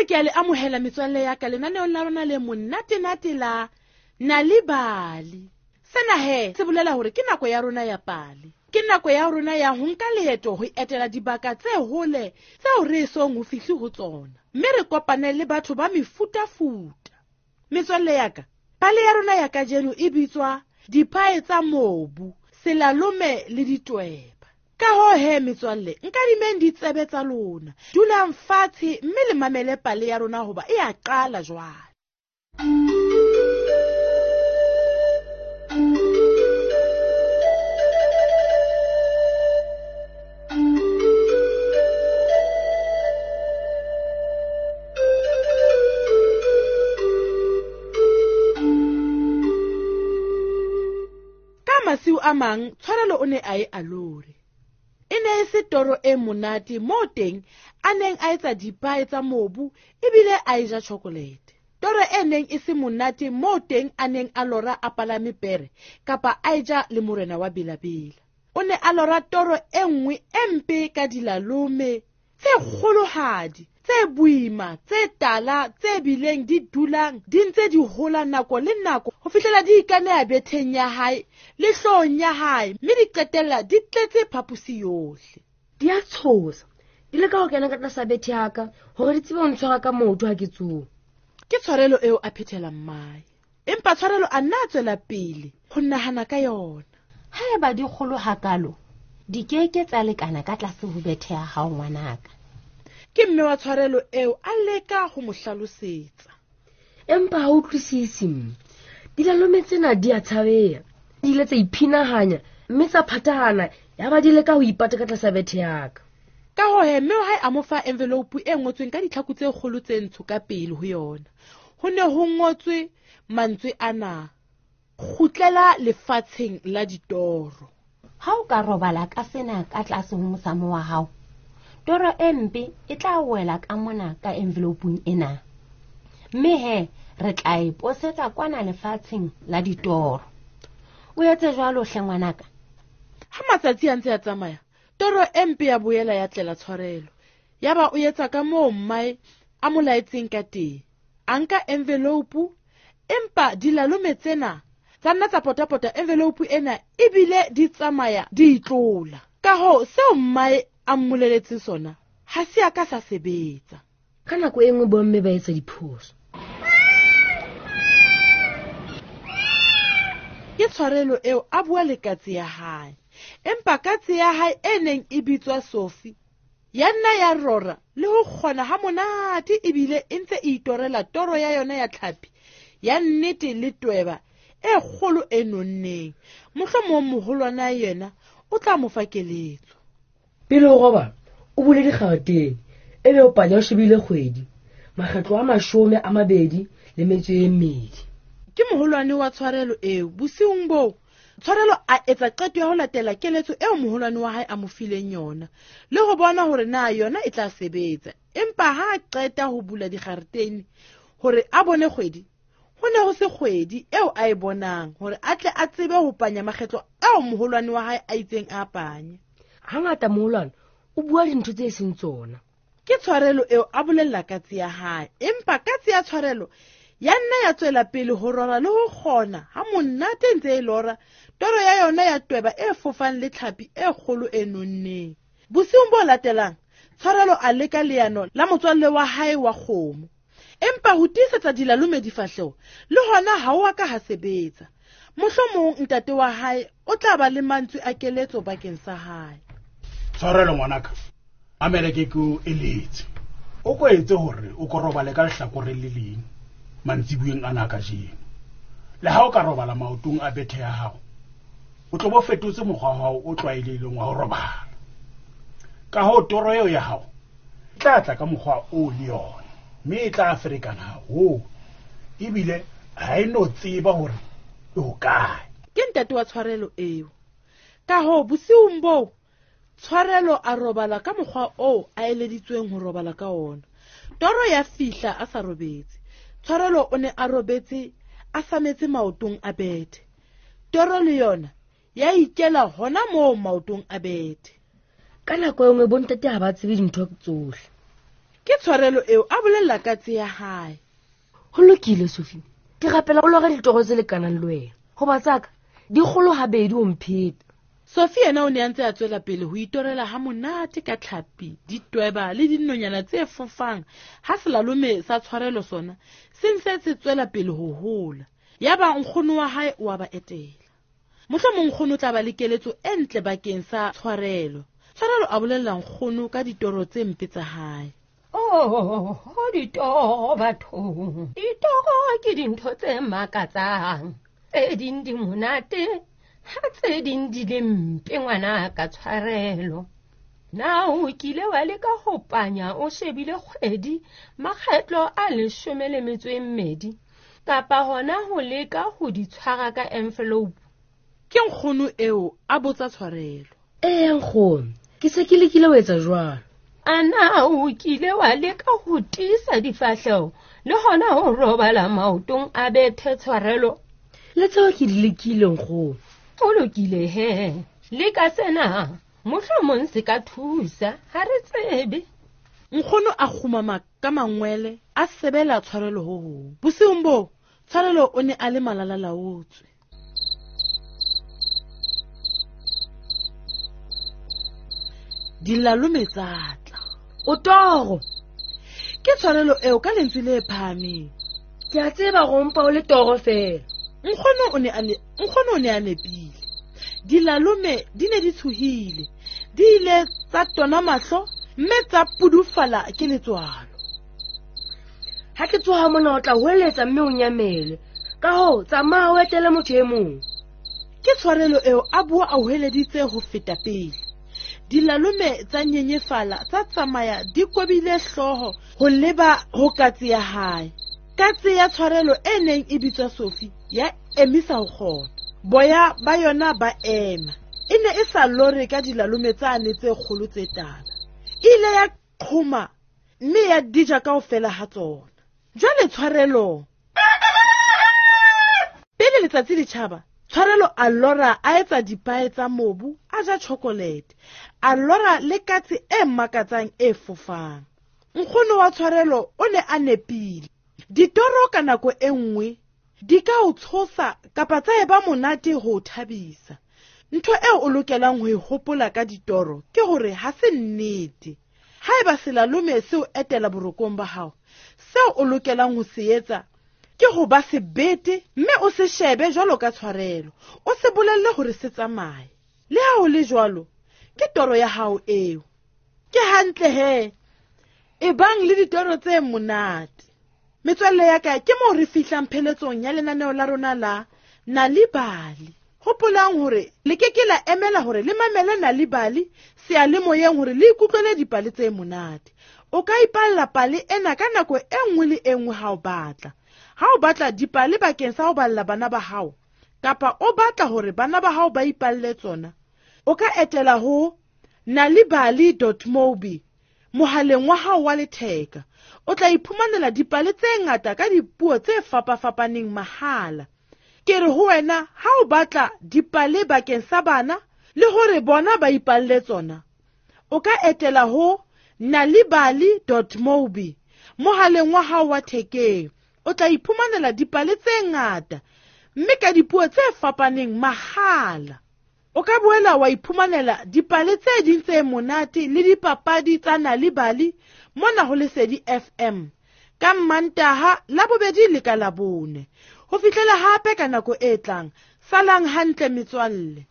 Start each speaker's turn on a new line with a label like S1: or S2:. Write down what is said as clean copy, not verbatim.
S1: Boetse ke a le amohela metswalle ya ka lenaneong la rona le monate-nate la Nal'ibali. Sena he se bolela hore ke nako ya rona ya pale. Ke nako ya rona ya ho nka leeto ho etela dibaka tse hole tseo re esong ho fihle ho tsona, mme re kopane le batho ba mefutafuta. Metswalle ya ka, pale ya rona ya kajeno e bitswa Diphae tsa mobu, Selalome le Ditweba. Ka hoo he metswalle, nkadimeng ditsebe tsa lona, dulang fatshe mme le mamele pale ya rona hoba e a qala jwale. Ka masiu a mang Tshwarelo o ne a e alore. E ne e se toro e monate moo teng a neng a etsa dipae tsa mobu ebile a e ja chocolate. Toro e neng e se monate moo teng a neng a lora a palame pere kapa a e ja le morena wa Belabela. O ne a lora toro e nngwe e mpe ka dilalome tse kgolohadi, tse boima, tse tala, tse bileng di dulang di ntse di hola nako le nako ho fihlela di ikaneha betheng ya hae le hloohong ya hae, mme di qetella di tletse phaposi yohle.
S2: Di a tshosa, di leka ho kena ka tlasa bethe ya ka hore di tsebe ho ntshwara ka maoto ha ke tsoha.
S1: Ke tshwarelo eo a phethela mmae, empa tshwarelo a nna a tswela pele ho nahana ka yona.
S3: Haeba di kgolo hakalo, di ke ke tsa lekana ka tlase ho bethe ya hao ngwanaka.
S1: Ke mme wa tshwarelo eo a leka ho mo hlalosetsa.
S2: Empa ha utlwisise mme. Dilalome tsena di a tshabeha. Di ile tsa iphinahanya mme tsa phathahana ya ba di leka ho ipata ka tlasa bethe ya ka.
S1: Ka hoo he, mme wa hae a mo fa envelope e ngotsweng ka ditlhaku tse kgolo tse ntsho ka pele ho yona. Ho ne ho ngotswe mantswe ana: kgutlela lefatsheng la ditoro.
S3: Ha o ka robala ka sena ka tlase ho mosamo wa hao, toro e mpe e tla wela ka mona ka envelopeng ena. Mme he, re tla e posetsa kwana lefatsheng la ditoro. O etse jwalo hle ngwanaka.
S1: Ha matsatsi a ntse a tsamaya, toro e mpe ya boela ya tlela tshwarelo. Yaba o etsa ka moo mmae a mo laetseng ka teng. A nka envelope, empa dilalome tsena tsa nna tsa potapota envelope ena ebile di tsamaya di itlola. Ka hoo seo mmae a mmoleletseng sona ha se a ka sa sebetsa.
S2: Ka nako e nngwe bomme ba etsa diphoso.
S1: Ke tshwarelo eo a bua le katse ya hae, empa katse ya hae e neng e bitswa Sophie ya nna ya rora le ho kgona ha monate ebile e ntse e itorela toro ya yona ya tlhapi ya nnete le tweba e kgolo e nonneng. Mohlomong moholwana yena o tla mo fa keletso.
S2: Pele o robala, o bule dikgaretene, ebe o panya o shebile kgwedi, makgetlo a 22.
S1: Ke moholwane wa tshwarelo eo. Bosiung boo, Tshwarelo a etsa qeto ya ho latela keletso eo moholwane wa hae a mo fileng yona, le ho bona hore na yona e tla sebetsa. Empa ha a qeta ho bula dikgaretene hore a bone kgwedi, ho ne ho se kgwedi eo a e bonang hore a tle a tsebe ho panya makgetlo ao moholwane wa hae a itseng a panye.
S2: Hangata moholwane o bua dintho tse seng tsona.
S1: Ke tshwarelo eo a bolella katse ya hae, empa katse ya tshwarelo ya nna ya tswela pele ho rora le ho kgona ha monate ntse e lora toro ya yona ya tweba e fofang le tlhapi e kgolo e nonneng. Bosiung bo latelang, Tshwarelo a leka leano la motswalle wa hae wa kgomo, empa ho tiisetsa dilalome difahleho le hona ha o a ka ha sebetsa. Mohlomong ntate wa hae o tla ba le mantswe a keletso bakeng sa hae.
S4: Tshwarelo ngwanaka, mamela ke ke o eletse. O ko etse hore o ko robale ka lehlakoreng le leng mantsibueng ana kajeno. Le ha o ka robala maotong a bethe ya hao, o tlo bo fetotse mokgwa wa hao o tlwaelehileng wa ho robala. Ka hoo toro eo ya hao e tla tla ka mokgwa o le yona, mme e tla ferekana haholo, ebile ha e no tseba hore e hokae.
S1: Ke ntate wa tshwarelo eo. Ka hoo bosiung boo, Tshwarelo a robala ka mokgwa oo a eleditsweng ho robala ka ona. Toro ya fihla a sa robetse. Tshwarelo o ne a robetse a sametse maotong a bethe. Toro le yona ya ikela hona moo maotong a bethe.
S2: Ka nako e nngwe bontate ha ba tsebe dintho tsohle.
S1: Ke tshwarelo eo a bolella katse ya hae.
S2: Ho lokile, Sophie. Ke rapela o lore ditoro tse lekanang le wena. Hoba tsaka di kgolo habedi ho mpheta.
S1: Sophie yena o ne a ntse a tswela pele ho itorela ha monate ka tlhapi, ditweba le dinonyana tse fofang ha selalome sa tshwarelo sona se ntse se tswela pele ho hola. Yaba nkgono wa hae o a ba etela. Mohlomong nkgono o tla ba le keletso e ntle bakeng sa tshwarelo. Tshwarelo a bolella nkgono ka ditoro tse mpe tsa hae.
S3: Oh, ditoro bathong. Ditoro ke dintho tse makatsang. Tse ding di monate, ha tse ding di le mpe ngwana ka tshwarelo. Na o kile wa leka ho panya o shebile kgwedi makgetlo a 12 kapa hona ho leka ho di tshwara ka envelope?
S1: Ke nkgono eo a botsa tshwarelo.
S2: Ee nkgono, ke se ke lekile ho etsa jwalo.
S3: Ana o kile wa leka ho tiisa difahleho le hona ho robala maotong a bethe tshwarelo?
S2: Le tseo ke di lekile nkgono.
S3: Ho lokile he, leka sena, mohlomong se ka thusa, ha re tsebe.
S1: Nkgono a kgumama ka mangwele a sebela tshwarelo ho hong. Bosiung boo, tshwarelo o ne a le malalalaotswe. Dilalome tsa tla.
S2: O toro.
S1: Ke tshwarelo eo ka lentswe le phahameng.
S2: Ke a tseba go mpa o le toro fela.
S1: Nkgono o ne a nepile. Dilalome di ne di tshohile. Di ile tsa tona mahlo mme tsa pudufala ke letswalo.
S2: Ha ke tsoha mona o tla hweletsa mme o nyamele. Ka hoo tsamaya o etele motho e mong.
S1: Ke tshwarelo eo a bua a hweleditse ho feta pele. Dilalome tsa nyenyefala tsa tsamaya di kobile hlooho ho leba ho katse ya hae. Katse ya tshwarelo e neng e bitswa Sophie ya emisa ho kgona. Boya ba yona ba ema. E ne e sa lore ka dilalome tsane tse kgolo tse tala. E ile ya qhoma mme ya dija kaofela ha tsona. Jwale tshwarelo. Pele letsatsi le tjhaba, tshwarelo a lora a etsa dipae tsa mobu, a ja chocolate. A lora le katse e makatsang e fofang. Nkgono wa tshwarelo o ne a nepile. Ditoro ka nako e nngwe di ka o tshosa kapa tsa eba monate ho o thabisa. Ntho eo o lokelang ho e hopola ka ditoro ke hore ha se nnete. Haeba selalome se o etela borokong ba hao, seo o lokelang ho se etsa ke ho ba sebete mme o se shebe jwalo ka tshwarelo. O se bolelle hore se tsamaye. Le ha ho le jwalo, ke toro ya hao eo. Ke hantle he. Ebang le ditoro tse monate. Metswalle ya ka, ke moo re fihlang pheletsong ya lenaneo la rona la Nal'ibali. Hopolang hore le ke ke la emela hore le mamele Nal'ibali seyalemoyeng hore le ikutlwele dipale tse monate. O ka ipalla pale ena ka nako e nngwe le e nngwe ha o batla. Ha o batla dipale bakeng sa ho balla bana ba hao, kapa o batla hore bana ba hao ba ipalle tsona, o ka etela ho nalibali.mobi mohaleng wa hao wa letheka. O tla iphumanela dipale tse ngata ka dipuo tse fapafapaneng mahala. Ke re ho wena ha o batla dipale bakeng sa bana le hore bona ba ipalle tsona, o ka etela ho nalibali.mobi mohaleng wa hao wa thekeng. O tla iphumanela dipale tse ngata mme ka dipuo tse fapaneng mahala. O ka boela wa iphumanela dipale tse ding tse monate le dipapadi tsa Nal'ibali mona ho Lesedi FM ka Mmantaha, Labobedi le ka Labone. Ho fihlela hape ka nako e tlang, salang hantle metswalle.